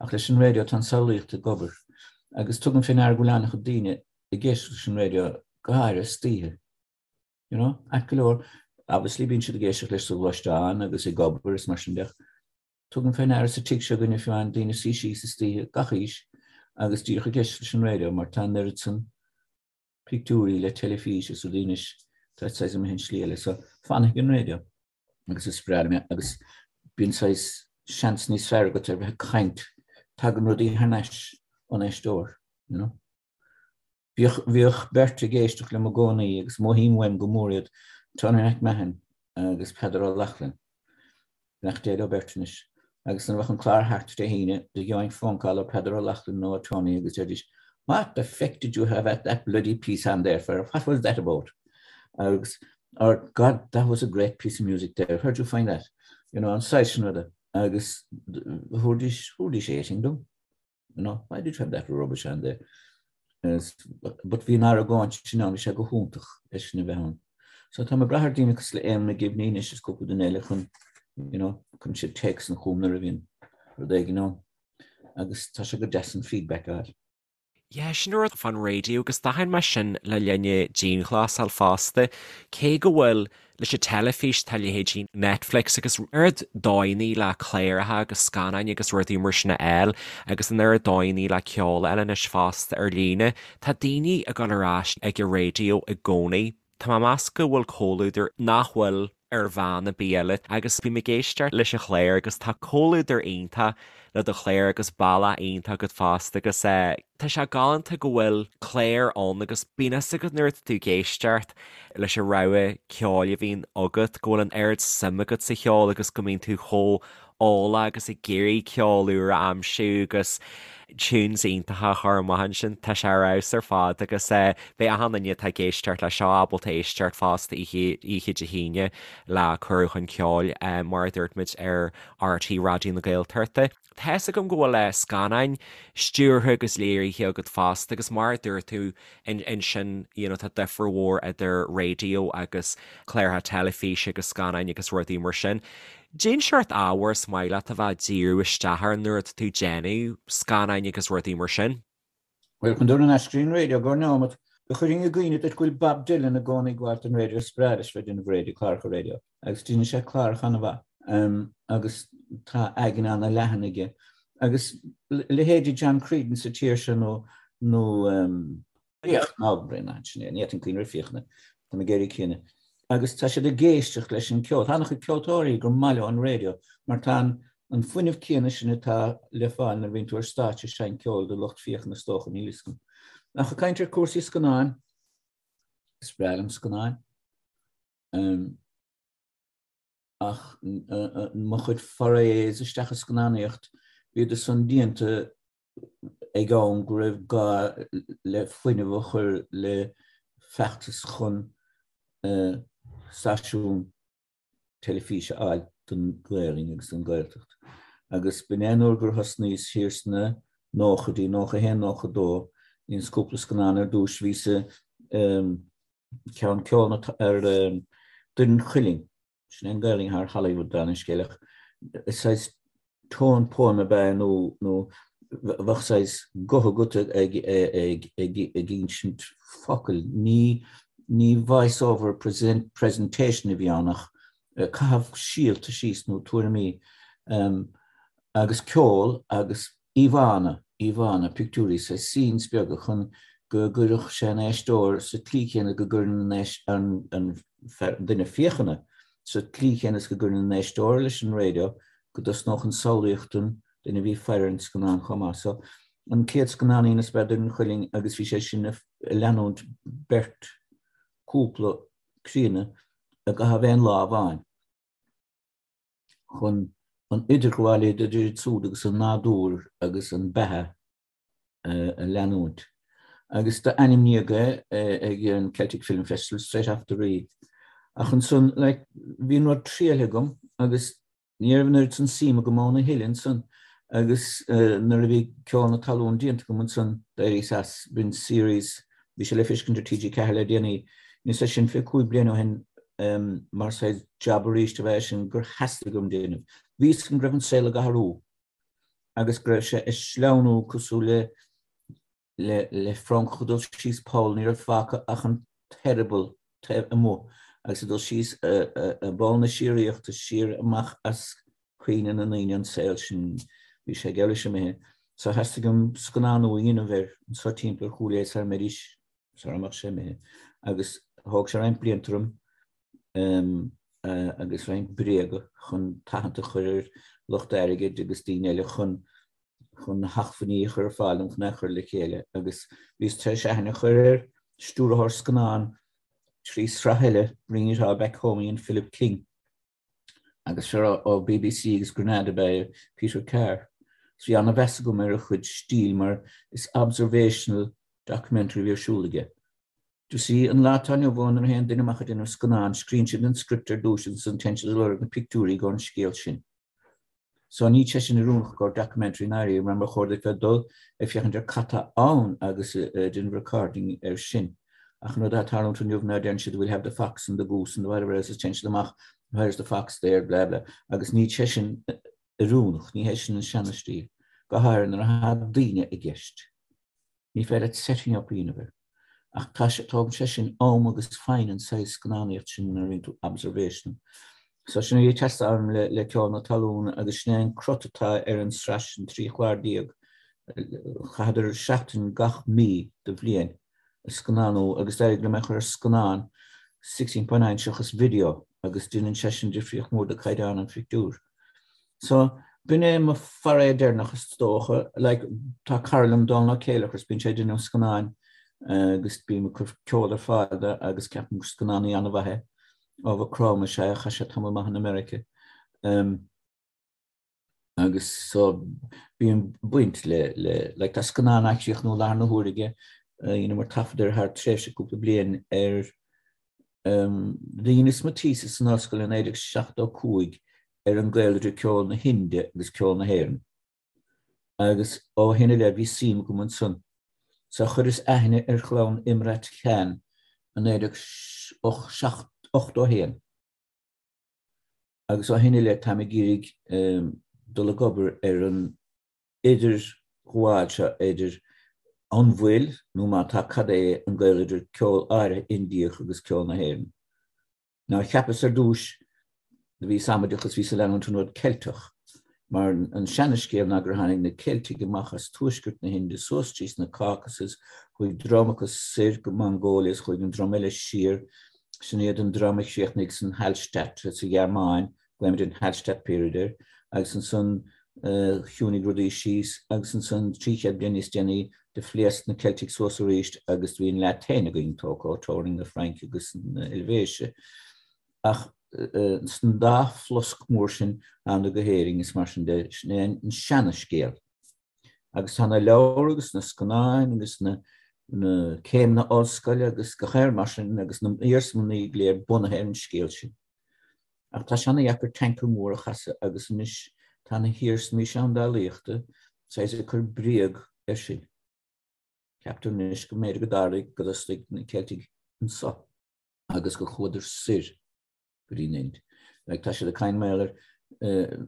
Ach leis an raidió tá an samhlaíocht ag obair. Agus tugaim fé ndeara go bhfuil an-chuid daoine ag éisteacht leis an raidió, go háirithe istoíche. You know, ait go leor, obviously bíonn siad ag éisteacht leis sa ghluaisteán agus ag obair is mar sin de ach tugaim fé ndeara sa tigh seo againne fiú amháin daoine suí síos istoíche gach aois agus díreach ag éisteacht leis an raidió mar tá an oiread san pictiúirí le teilifís is rudaí anois tá saghas imithe an slí eile so fanfaidh an raidió. agus is breá liom é agus bíonn saghas seans níos fearr agat ar bheith ag caint, tagann rudaí thar n-ais ón éisteoir, you know. Bhíodh, bhíodh beirt ag éisteacht liom i gcónaí agus mothaím uaim go mór iad, Tony McMahon agus Peadar Ó Lochlainn. Beannacht Dé leo beirt anois. Agus nuair a bheadh an clár thart Dé hAoine, do gheobhainn phone call ó Peadar Ó Lochlainn nó ó Tony agus deiridís, What the feck did you have at that bloody piece on there for? What was that about? Agus, or God, that was a great piece of music there. Where'd you find that? You know, an saghas sin ruda. Agus thabharfaidís, thabharfaidís 18 dom. You know, why did you have that rubbish on there? But bhí an argóint sin ann, bhí sé go hiontach é sin a bheith ann. So tá mé ag brath ar daoine cosúil le Éamonn McGibney anois is cúpla duine eile chun, you know, chun siad téacs chugam nuair a bhíonn rud éigin ann. Agus tá sé go deas an feedback a fháil. Yeah, sin an rud fán raidió agus d'aithin mé sin le linn na dianghlasáil fosta. Cé go bhfuil leis an teilifís tá leithéidí Netflix agus oiread dóigheanna le cláracha agus scannáin agus rudaí mar sin a fháil agus an oiread dóigheanna le ceol a fháil anois fosta ar líne, tá daoine ag dul ar ais ag an raidió i gcónaí. Tá mé ag meas go bhfuil comhluadar nach bhfuil ar mheán ar bith eile agus bím ag éisteacht leis an chlár agus tá comhluadar iontach le do chlár agus bealach iontach agat fosta agus tá sé galánta go bhfuil clár ann agus bíonn fhios agat nuair atá tú ag éisteacht leis an rogha ceoil a bhíonn agat go bhfuil an oiread suim agat sa cheol agus go mbíonn tú chomh eolach agus ag iarraidh ceol úr a aimsiú agus tunes iontacha a chur amach ansin. Tá sé ar fheabhas ar fad agus beidh achan duine atá ag éisteacht leis seo ábalta éisteacht fosta oíche Dé hAoine le Cuireadh Chun Ceoil mar a dúirt muid ar RTÉ Raidió na Gaeltachta. Tá fhios agam go bhfuil scannáin stiúrtha agus léirithe agat fosta agus mar a dúirt tú ansin you know tá difear mhór idir raidió agus cláracha teilifíse agus scannáin agus rudaí mar sin. Cén seort ábhair is maith leat a bheith ag díriú isteach air nuair atá tú ag déanamh scannáin agus rudaí mar sin? Bhuel, chun dul ar ais go dtí an raidió go nóiméad, do chuirfinn i gcuimhne duit go bhfuil Bob Dylan i gcónaí ag gabháilt don raidió, is breá leis bheith ag déanamh raidió, cláracha raidió, agus déanann sé cláracha an-mhaith agus tá aigne an-leathan aige. Agus leithéidí John Creedon sa tír seo nó nó Fiach, ná Bréanainn, sin é, ní fhéadfainn cuimhneamh ar Fiachna, tá mé ag éirí críonna. Agus tá siad ag éisteacht leis an gceol. Tá an-chuid ceoltóirí gur maith leo an raidió mar tá an an fuinneamh céanna sin atá le fáil nuair a bhíonn tú ar stáitse ag seinnt ceoil do lucht féachana is dócha, níl fhios agam. Ach ag caint ar cúrsaí scannáin, is breá liom scannáin. Ach mo chuid forays isteach i scannánaíocht, bhíodar san déanta ag am go raibh gá le fuinneamh a chur le feachtas chun stáisiún teilifíse a fháil don Ghaelainn agus don Ghaeltacht. Agus b'in é an uair gur thosnaíos thiar sna nóchaidí, 91, 92, dheineas cúpla scannán ar dtús, bhíos ceann ceol ar Doire an Chuilinn, Sin é an Ghaelainn thar Hollywood dála an scéil ach saghas tone poem ab ea nó nó bheadh saghas guth agat ag ag ag ag insint focail. Ní ní voice over present presentation a bhí ann ach caitheamh síolta síos nó tuairimí agus ceol agus íomhánna, íomhánna, pictiúirí, saghas scenes beaga chun go gcuirfeadh sé an éisteoir sa tslí chéanna go gcuireann an an duine féachana sa tslí chéanna is go gcuireann an éisteoir leis an raidió go dtosnódh an samhlaíocht don duine a bhí ag faire ar an scannán chomh maith. So, an chéad scannán a dheineas ab ea Doire an Chuilinn agus bhí sé sin ag leanúint beirt cúpla críonna i gcaitheamh aon lá amháin. chun an idirghabháil idir iad siúd agus an nádúr agus an beatha a leanúint. Agus d'ainmníodh é ag an Celtic Film Festival straight off the reel. Ach ansan, like, bhí an rud triailthe agam agus ní raibh an oiread san suim agam ann a thuilleadh ansan agus nuair a bhí Ceol na Talún déanta agam ansan d'éiríos as, b'in series, bhí sé le feiscint ar TG4 le déanaí, dheineas é sin 25 bliain ó shin mar saghas jab arís ab ea é sin gur theastaigh uaim déanamh. Bhí fhios agam go raibh an saol ag athrú agus go raibh sé ag sleamhnú cosúil le le le francach ag dul síos poll, ní raibh fágtha ach an t-eireaball taobh amuigh agus ag dul síos i bpoll na síoraíochta siar amach as cuimhne na ndaoine an saol sin, bhí sé geall leis imithe. So theastaigh uaim scannánú a dhéanamh air anseo timpeall ar Chúil Aodha sara mbeidís sara mbeadh sé imithe. Agus thóg sé roinnt blianta orm agus roinnt bréaga chun tathant a chur ar lucht airgid agus daoine eile chun chun na hacmhainní a chur ar fáil dom chun é a chur le chéile agus bhíos tar éis aithne a chur ar stiúrthóir scannán trí sraith eile, Bringing It All Back Home a dhein Philip King. Agus fear ó BBC agus Granada ab ea é, Peter Carr. So bhí an-mheas agam ar a chuid stíl mar is observational documentary a bhí ar siúl aige. Do you see, an lá atá inniu ann nuair a théann duine amach ag déanamh scannán, scríonn siad an script ar dtús agus ansan téann siad ag lorg na pictiúirí don scéal sin. So níl sé sin oiriúnach i gcomhair documentary i ndáiríre mar ba chóir duit bheith ag dul ag féachaint ar cad tá ann agus ag déanamh recording air sin. Ach an rud atá ag tarlúint inniu ná deireann siad we'll have the fox and the goose and the whatever else is téann siad amach where's the fox there blah blah agus níl sé sin oiriúnach, ní hé sin an seana-stíl, go háirithe nuair atá daoine i gceist. Ní féidir leat setting up a dhéanamh air. Ach tá sé, tógann sé sin am agus foighne an saghas scannánaíocht sin nuair a bhíonn tú observational. So sin é ag teastáil uaim le, le Ceol na Talún agus sin é an crot atá ar an sraith sin, 13 chlár. Chaitheadar seachtain gach mí de bhliain ag scannánú agus d'éirigh liom é a chur ar scannán 16.9 seachas video agus déanann sé sin difríocht mór do caighdeán an phictiúir. So, b'in é mo foray deireanach is dócha. Like, tá cara liom, Dónal Ó Céilleachair, is bíonn sé ag déanamh scannáin agus bím ag cur ceol ar fáil dó agus ceapaim gur scannánaí an-mhaith é. Ó Mhaigh Chromtha is ea é, chaith sé tamall maith in America. Um, agus so bíonn baint le, le, like, tá scannán á chríochnú i láthair na huaire aige, dheineamar taifead air thar tréimhse cúpla bliain ar Dheineas mo thesis san ollscoil i 1975 ar an gaol idir ceol na hInde agus ceol na hÉireann. Agus ó shin i leith bhí suim agam ansan. So chuireas aithne ar chlann Imrat Khan i 1981. Agus ó shin i leith táim ag iarraidh dul ag obair ar an idirghabháil seo idir an bhfuil, nó má tá cad é an gaol idir ceol áirithe Indiach agus ceol na hÉireann. Now cheapas ar dtúis, do bhíos amaideach is bhíos ag leanúint an rud Ceilteach, mar an seana-scéal ná gur tháinig na Ceiltigh amach as tuaisceart na hInde suas trí na Caucasus, chuaigh dream acu soir go Mongolia is chuaigh an dream eile siar, sin iad an dream a chríochnaigh san Hallstatt sa Ghearmáin, Glaoimid an Hallstatt Period air, agus ansan chiúnaigh rudaí síos agus ansan 300 bliain níos déanaí do phléasc na Ceiltigh suas arís agus do bhí an La Tène againn tógtha ó teorainn na Fraince agus na Eilvéise. Ach san dá phlosc mór sin thánadar go hÉirinn is mar sin de, sin é an seana-scéal. Agus tá na leabhair agus na scannáin agus na céimeanna ollscoile agus gach aon rud mar sin agus na iarsmalanna go léir bunaithe ar an scéal sin. Ach tá sé ana-dheacair tanker mór a chasadh agus anois tá na hiarsmaí seandálaíochta saghas ag cur bréag air sin. Ceaptar anois go mb'fhéidir go dtarlaigh go dtosnaigh na Ceiltigh anso agus gur chuadar soir go dtí an Ind. Like tá siad ag caint mar gheall ar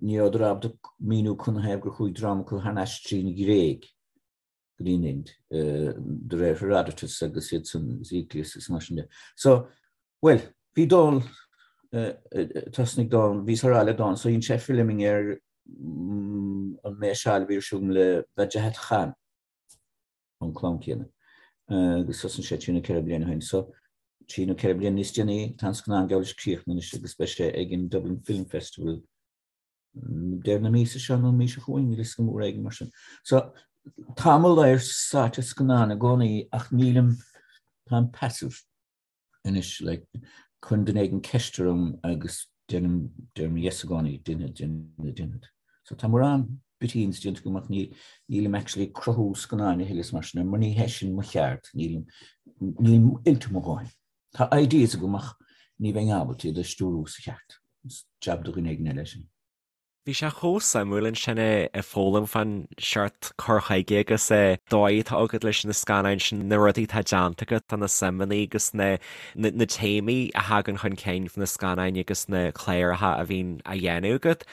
ní rabhadar ábalta míniú canathaobh gur chuaigh dream acu thar n-ais trín Ghréig. go dtí an Ind, de réir Herodotus agus iad san agus Euclius agus mar sin de. So, bhuel, bhí Dónal, thosnaigh Dónal, bhíos á rá le Dónal, so dhein sé filming ar an méasáil a bhí ar siúl agam le Wajahat Khan, ón clann céanna, agus thosnaigh sé trí nó ceithre bliana ó shin. So, trí nó ceithre bliana níos déanaí, tá an scannán geall leis críochnaithe anois agus beidh sé ag an Dublin Film Festival deireadh na míosa seo nó an mhí seo chugainn, níl a fhios agam, uair éigin mar sin. So, tá mo ladhar sáite i scannán i gcónaí ach nílim, táim passive anois, like, cuireann duine éigin ceist orm agus deirim, deirim yes i gcónaí, déanfad, déanfad, déanfad. So tá mórán bitíns déanta agam ach ní, nílim actually ag cruthú scannáin a thuilleadh is mar sin, mar ní hé sin mo cheard, nílim, nílim oilte mo dhóthain. Tá ideas agam ach ní bheinn ábalta iad a stiúrú sa cheart. Is jab do dhuine éigin eile é sin. Bhí sé chomh suimiúil ansin ag foghlaim fán seort cur chuige agus an dóigh atá agat leis na scannáin sin, na rudaí atá déanta agat, na suimeanna agus na na téamaí a thagann chun cinn sna scannáin agus na cláracha a bhíonn á dhéanamh agat.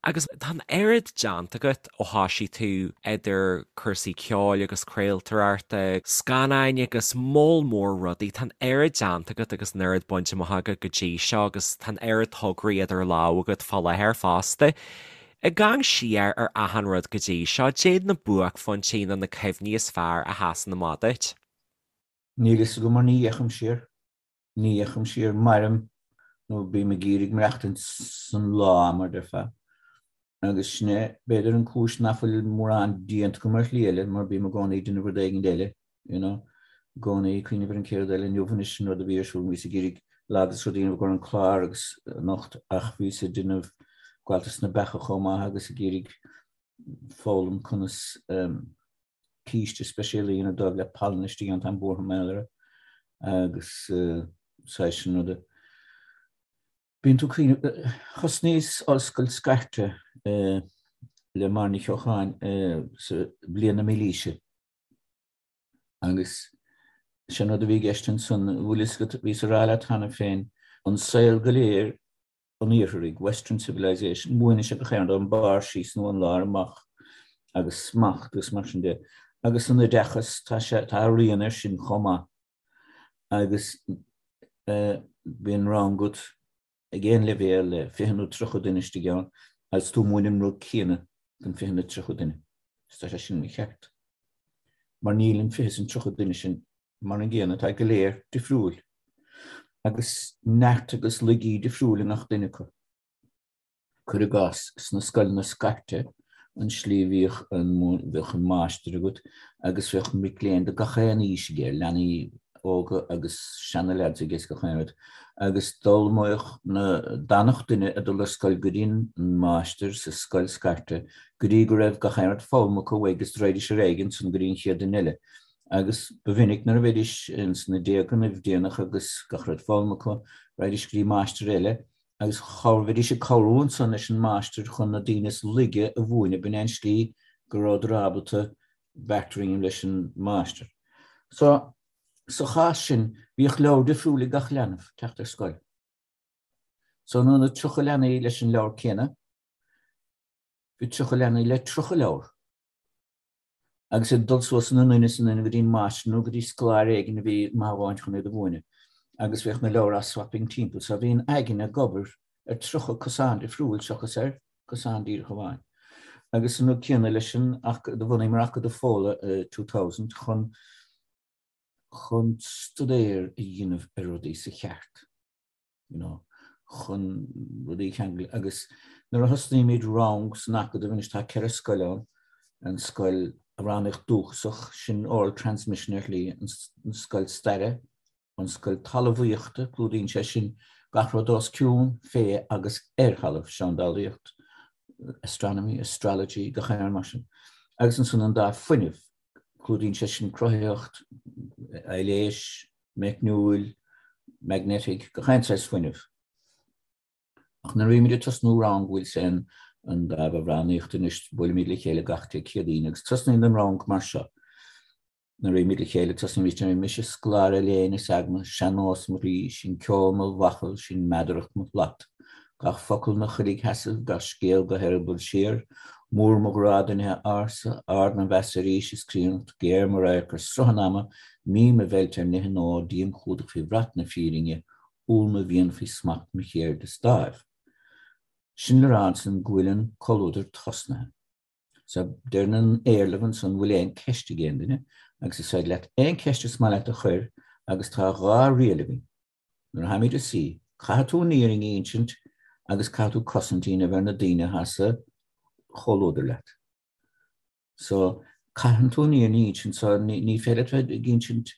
Agus tá an oiread déanta agat ó thoisigh tú idir cúrsaí ceoil agus craoltóireachta, scannáin agus moll mór rudaí. Tá an oiread déanta agat agus an oiread bainte amach agat go dtí seo agus tá an oiread tograí idir lámha agat fá láthair fosta. Ag amharc siar ar achan rud go dtí seo, caidé na buaicphointí nó na cuimhní is fearr a sheasann amach duit? Níl fhios agam mar ní fhéachaim siar. Ní fhéachaim siar, mairim nó bím ag iarraidh maireachtaint san lá, mar déarfá. Agus sin é, b'fhéidir, an cúis nach bhfuil mórán déanta agam ar shlí eile, mar bím i gcónaí ag déanamh rud éigin eile, you know, i gcónaí ag cuimhneamh ar an chéad rud eile. Inniu anois an rud a bhí ar siúl, bhíos ag iarraidh Lag is rud a dhéanamh i gcomhair an clár agus anocht ach bhíos ag déanamh gabháltas na beacha chomh maith agus ag iarraidh foghlaim conas císte speisialta a dhéanamh dóibh le palann istigh ann, táim buartha mar gheall air agus saghas sin ruda. Bíonn tú cuimhneamh, thosnaíos ollscoil scairte i. Le Máire Ní Cheocháin sa bhliain na mílaoise agus sé an rud a bhí i gceist ansan, bhfuil fhios agat, bhíos a rá leat cheana féin, an saol go léir an iartharaigh, western civilization, múineann sé gach aon rud ón mbarr síos nó ón lár amach agus smacht agus mar sin de. Agus an oideachas, tá sé, tá a rian air sin chomh maith agus bíonn rang agat ag aon leibhéal le 20 nó 30 duine istigh ann agus tú ag múineadh an rud céanna don 20 nó 30 duine. Is tá sé sin mícheart. Mar níl an 20 is an 30 duine sin mar an gcéanna, tá go léir difriúil. Agus neart agus laigí difriúil i ngach duine acu. Cuir i gcás, sna scoileanna scairte, an slí a bhíodh an, bheadh an máistir agat agus bheadh mic léinn de gach aon aois aige, leanaí óga agus seana-leaids aige is gach aon rud, agus d'ullmhaíodh na, d'fhanadh duine ag dul ar scoil go dtí an máistir sa scoil scairte go dtí go raibh gach aon rud foghlamtha acu uaidh agus raghaidís ar aghaidh ansan go dtí an chéad duine eile. Agus ba mhinic nuair a bheidís ins na déagannaibh déanach agus gach rud foghlamtha acu, raghaidís go dtí máistir eile agus bheidís ag cabhrú ansan leis an máistir chun na daoine is laige a mhúineadh, b'in é an slí go rabhadar ábalta bartering leis an máistir. So, sa chás sin, bhíodh leabhar difriúil ag gach leanbh teacht ar scoil. So, in ionad 30 leanaí leis an leabhar céanna, bhí 30 leanaí le 30 leabhar. agus ag dul suas ina nduine is a nduine go dtí an máistir nó go dtí scoláire éigin a bhí maith amháin chun iad a mhúineadh agus bheadh na leabhair á swapping timpeall so bhí an aigne ag obair ar 30 cosán difriúil seachas ar cosán díreach amháin. Agus an rud céanna leis an do bhunaíomar Acadamh Fódhla i 2000 chun chun stuidéar a dhéanamh ar rudaí sa cheart. you know, chun rudaí a cheangal agus nuair a thosnaímid rang san Acadamh, anois tá 4 scoil ann, an scoil amhránaíocht dúchasach, sin oral transmission ar shlí, an scoil staire, an scoil talmhaíochta, clúdaíonn sé sin gach rud os cionn, fé agus ar thalamh, seandálaíocht, astronomy, astrology, gach aon rud mar sin. Agus ansan an dáimh fuinnimh, clúdaíonn sé sin cruthaitheacht, aibhléis, meicniúil, magnetic, gach aon saghas fuinnimh. Ach nuair a bhímid ag tosnú rang bhfuil sé an an dáimh amhránaíochta anois, buailimid le chéile gach Dé Céadaoin agus tosnaíonn an rang mar seo. Nuair a bhímid le chéile tosnaímid ar mise scoláire léinn is eagna, sean-nós mo chroí, sin ceol mo bhachall, sin meadaracht mo shlat. Gach focal 'na choiligh sheasaimh, gach scéal go heireaball siar, Mór mo ghrá do nithe ársa, ard mo mheas ar aois is críonnacht, géar mo radharc ar sruth an ama, mín mo mheilt ar nithe nua, díom chumhdach faoi bhrat na fírinne, umhal mo mhian faoi smacht mo cheirde is dáimh. Sin le rá ansan go bhfuil an comhluadar tosnaithe. So deireann an éarlamh ansan bhfuil aon ceist ag aon duine agus is féidir leat aon cheist is maith leat a chuir agus tá 2 riail againn. Nuair a tháimid a suí, caithfidh tú an fhírinne a insint agus caithfidh tú cosaint a dhéanamh ar na daoine atá sa chomhluadar leat. So, caitheann tú an fhírinne a insint, so ní féidir leat bheith ag insint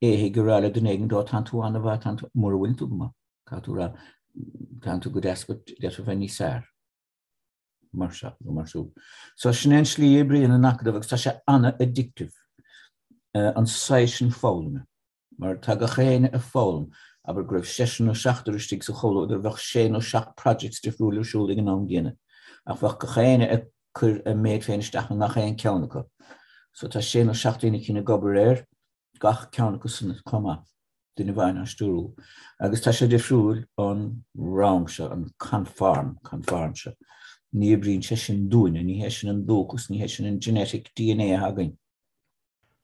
éithigh a rá le duine éigin, ó tánn tú an-mhaith, tánn tú, mura bhfuileann tú go maith, caithfidh tú rá, tánn tú go deas but d'fhéadfá bheith níos fearr. Mar seo nó mar siúd. So sin é an slí a oibríonn an Acadamh agus tá sé an-addictive, an saghas sin foghlama. Mar tá gach éinne ag foghlaim, abair go raibh seisear nó seachtar istigh sa chomhluadar, bheadh sé nó seacht projects difriúil ar siúl ag an am gcéanna, ach bheadh gach éinne ag cur a méid féin isteach i ngach aon ceann acu. So tá sé nó seacht daoine eicínt ag obair ar gach ceann acu san chomh maith, duine amháin á stiúrú. Agus tá sé difriúil ón rang seo, an conform, conform seo. Ní oibríonn sé sin dúinne, ní hé sin an dúchas, ní hé sin an genetic DNA atá againn.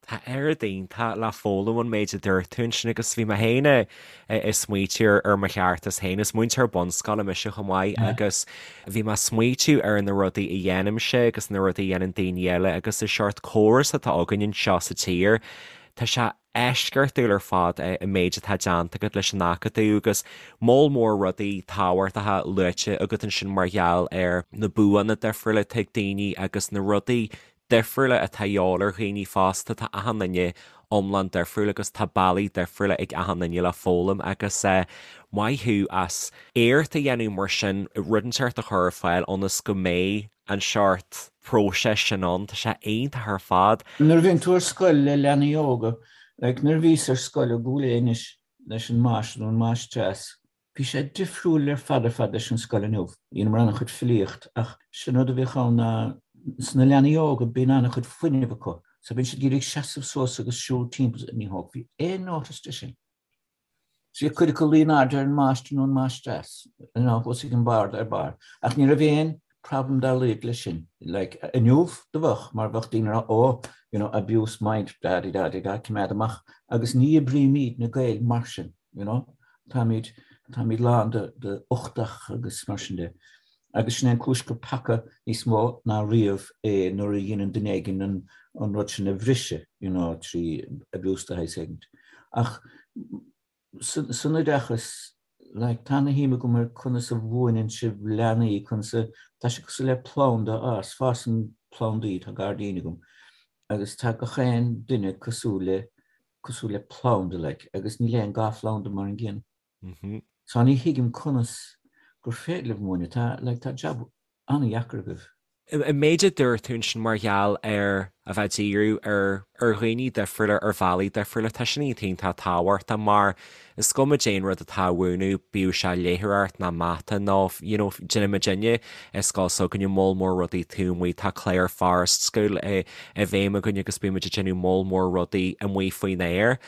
Tá oiread iontach le foghlaim ón méid a dúirt tú ansin agus bhí mé féin ag smaoitiú ar mo cheartas féin. Is múinteoir bunscoile mise chomh maith agus bhí mé ag smaoitiú ar na rudaí a dhéanaimse agus na rudaí a dhéanann daoine eile agus an seort córas atá againn anseo sa tír. Tá sé eisceachtúil ar fad an méid atá déanta agat leis an Acadamh agus moll mór rudaí tábhachtacha luaite agat ansin mar gheall ar na buanna difriúla atá ag daoine agus na rudaí difriúla atá a dhíobháil ar dhaoine fosta, tá achan duine iomlán difriúil agus tá bealaí difriúla ag achan duine le foghlaim agus maith thú as iarracht a dhéanamh mar sin rud inteacht a chur ar fáil ionas go mbeidh an seort próiseas sin ann, tá sé iontach ar fad. Nuair a bhíonn tú ar scoil le leanaí óga, like nuair a bhíos ar scoil i gCúil Aodha anois leis an máistir nó an máistreás, Bhí sé difriúil ar fad ar fad leis an scoil inniu. Dheineamar an-chuid filíocht ach sin rud a bhíodh ann ná. Sna leanaí óga bíonn an-chuid fuinnimh acu so bíonn siad ag iarraidh seasamh suas agus siúl timpeall ní thógfaí aon notice de sin. So bhí cuid acu luí in airde ar an máistir nó an máistreás you know thuas ag an bord ar barr ach ní raibh aon problem dá laghad leis sin. Like inniu do bheadh mar bheadh daoine ag rá oh you know abuse mind da di da di da coimeád amach agus ní oibrímid na Gaeil mar sin you know táimid táimid lán de de uchtach agus mar sin de. Agus sin é an cúis gur peaca níos mó ná riamh é nuair a dhéanann duine éigin an an rud sin a bhriseadh, you know, trí abuse de shaghas éigint. Ach san oideachas, like, tá ana-shuim agam ar conas a mhúineann sibh leanaí, conas a, tá sé cosúil le planda a fhás, fásann plandaí, tá gairdín agam, agus tá gach aon duine cosúil le, cosúil le planda, like, agus níl aon dá phlanda mar an gcéanna. So ní thuigim conas gur féidir libh múineadh, tá, like, tá jab an-dheacair agaibh. An méid a dúirt tú ansin mar gheall ar a bheith ag díriú ar ar dhaoine difriúla ar bhealaí difriúla, tá sin iontach tábhachtach mar is cuma cén rud atá á mhúineadh, bíodh sé léitheoireacht ná mata nó you know déanann muidinne i scoil s'againne moll mór rudaí taobh amuigh, tá clár Forest School i i bhfeidhm againn agus bíonn muid ag déanamh moll mór rudaí amuigh faoin aer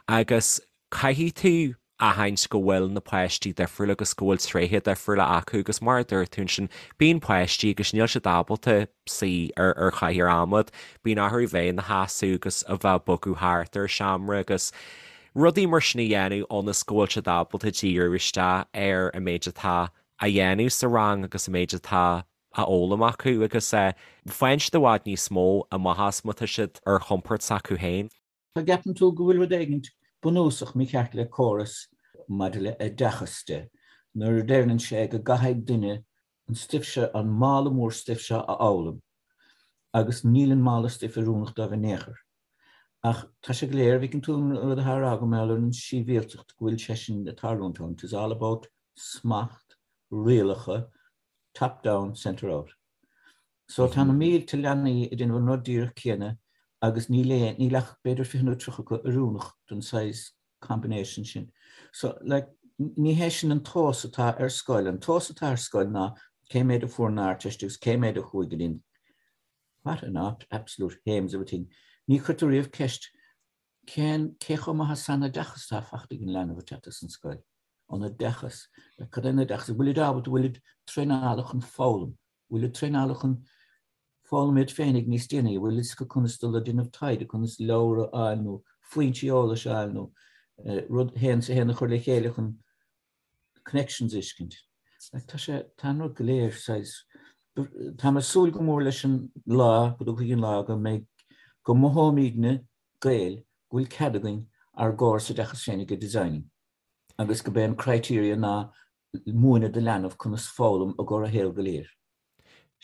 agus caithfidh tú aithint go bhfuil na páistí difriúil agus go bhfuil tréithe difriúla acu agus mar a dúirt tú ansin, bíonn páistí agus níl siad ábalta suí ar ar chathaoir adhmaid, bíonn orthu bheith ina sheasamh agus a bheith ag bogadh thart ar seomra agus rudaí mar sin a dhéanamh ionas go bhfuil siad ábalta díriú isteach ar an méid atá á dhéanamh sa rang agus an méid atá á fhoghlaim acu agus faigheann siad i bhfad níos mó amach as má tá siad ar chompord s'acu féin. An gceapann tú go bhfuil rud éigint bunúsach mícheart le córas maidir le oideachas de nuair a deireann sé go gcaithfidh duine an stuif seo, an mála mór stuif seo a fhoghlaim agus níl an mála stuif oiriúnach dóibh in aon chor. Ach tá sé go léir, an bhfeiceann tú an rud atá á rá agam mar gheall ar an síbhialtacht, go bhfuil sé sin ag tarlúint ann, it is all about smacht, rialacha, top down, centre out. So tá na mílte leanaí ag déanamh an rud díreach céanna agus níl aon, níl ach b'fhéidir 20 nó 30 acu oiriúnach don saghas combination sin. So like ní hé sin an tomhas atá ar scoil. An tomhas atá ar scoil ná cé mhéad a fuair an Ardteist agus cé mhéad a chuaigh go dtí an What an absolute hames of a thing. Ní chuirtear riamh ceist cén, cé chomh maith is an oideachas atá faighte ag an leanbh ag teacht as an scoil. An oideachas. Cad é an oideachas? An bhfuilid ábalta, an bhfuilid traenáilte chun foghlaim? An bhfuilid traenáilte chun foghlaim iad féinig níos déanaí? An bhfuil fhios acu conas dul ag déanamh taighde, conas leabhar a fháil nó foinsí eolais a fháil nó rud a haon is a haon a chur le chéile chun connections a fheiscint. Like, tá sé, tá an rud go léir saghas, tá mé ag súil go mór leis an lá, go dtiocfaidh an lá go mbeidh, go mothóimidne, Gaeil, go bhfuil cead againn ár gcóras oideachais féinig a designing agus go b'é an criteria ná múineadh do leanbh conas foghlaim i gcomhair a shaol go léir.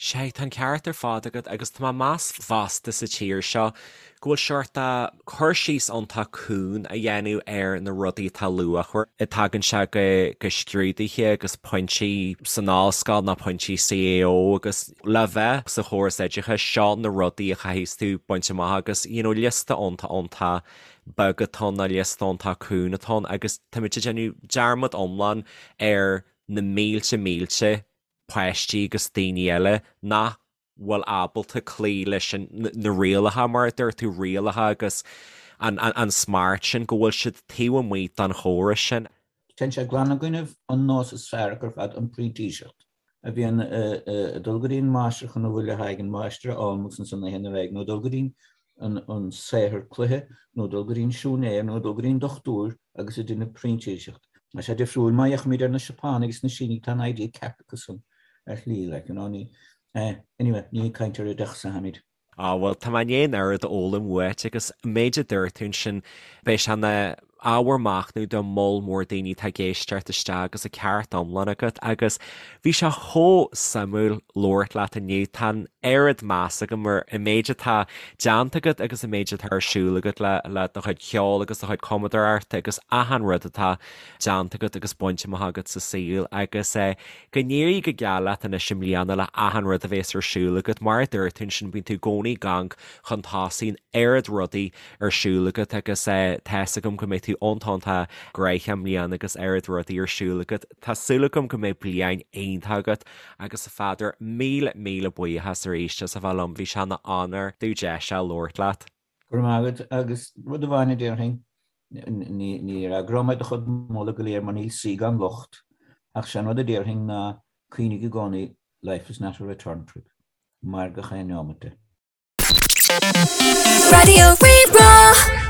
Sea, tá an ceart ar fad agat agus tá mé ag meas fosta sa tír seo go bhfuil seort cur síos iontach cúng á dhéanamh ar na rudaí atá luachmhar. Tagann sé go go scrúduithe agus pointí san ollscoil nó pointí CAO agus le bheith sa chóras oideachais seo na rudaí a chaithfidh tú baint amach agus you know liosta iontach iontach beag atá ann nó liosta iontach cúng atá ann agus táimid ag déanamh dearmad iomlán ar na mílte mílte páistí agus daoine eile nach bhfuil ábalta cloí leis na rialacha, mar a dúirt tú, rialacha agus an smacht sin, go bhfuil siad taobh amuigh den chóras sin. Téann sé glan i gcoinnibh an nós is fearr acu ar fad, an printíseacht, a bhíonn ag dul go dtí an máistir chun a bhfuil le haghaidh an mháistir a fhoghlaim agus ansan a théann ar aghaidh, nó dul go dtí an saothar cloiche, nó dul go dtí an siúinéir, nó dul go dtí an dochtúir agus ag déanamh printíseacht. Tá sé difriúil má fhéachaimid ar na Seapánaigh is na Sínigh, tá an idea ceart acu san ar shlí, like, you know, ní, eh, anyway, ní ag caint ar oideachas atháimid. Á, bhuel, tá mé i ndiaidh an oiread a fhoghlaim uait agus an méid a dúirt tú ansin, beidh sé ina ábhar machnaimh do moll mór daoine atá ag éisteacht isteach agus an ceart iomlán agat agus bhí sé chomh suimiúil labhairt leat inniu. Tá an oiread meas agam ar an méid atá déanta agat agus an méid atá ar siúl agat le le do chuid ceoil agus do chuid cumadóireachta agus achan rud atá déanta agat agus bainte amach agat sa saol agus eh, go n-éirí go geal leat anois i mbliana le achan rud a bhéas ar siúl agat. Mar a dúirt tú ansin, bíonn tú i gcónaí ag amharc chun tosaigh, an oiread rudaí ar siúl agat agus tá's agam go mbeidh tú. tú iontach iontach gnoitheach i mbliana agus oiread rudaí ar siúl agat. Tá súil agam go mbeidh bliain iontach agat agus a Pheadair, míle míle buíochas arís as a bheith liom, bhí sé ina onóir domh deis a labhairt leat. Go raibh maith agat agus rud amháin a déarfainn, ní fhreagróidh mé do chuid moladh go léir mar níl saoi gan locht, ach sé an rud a déarfainn ná cuimhnigh i gcónaí life is not a return trip. Mair gach aon neomat de. Raidió Rí-Rá.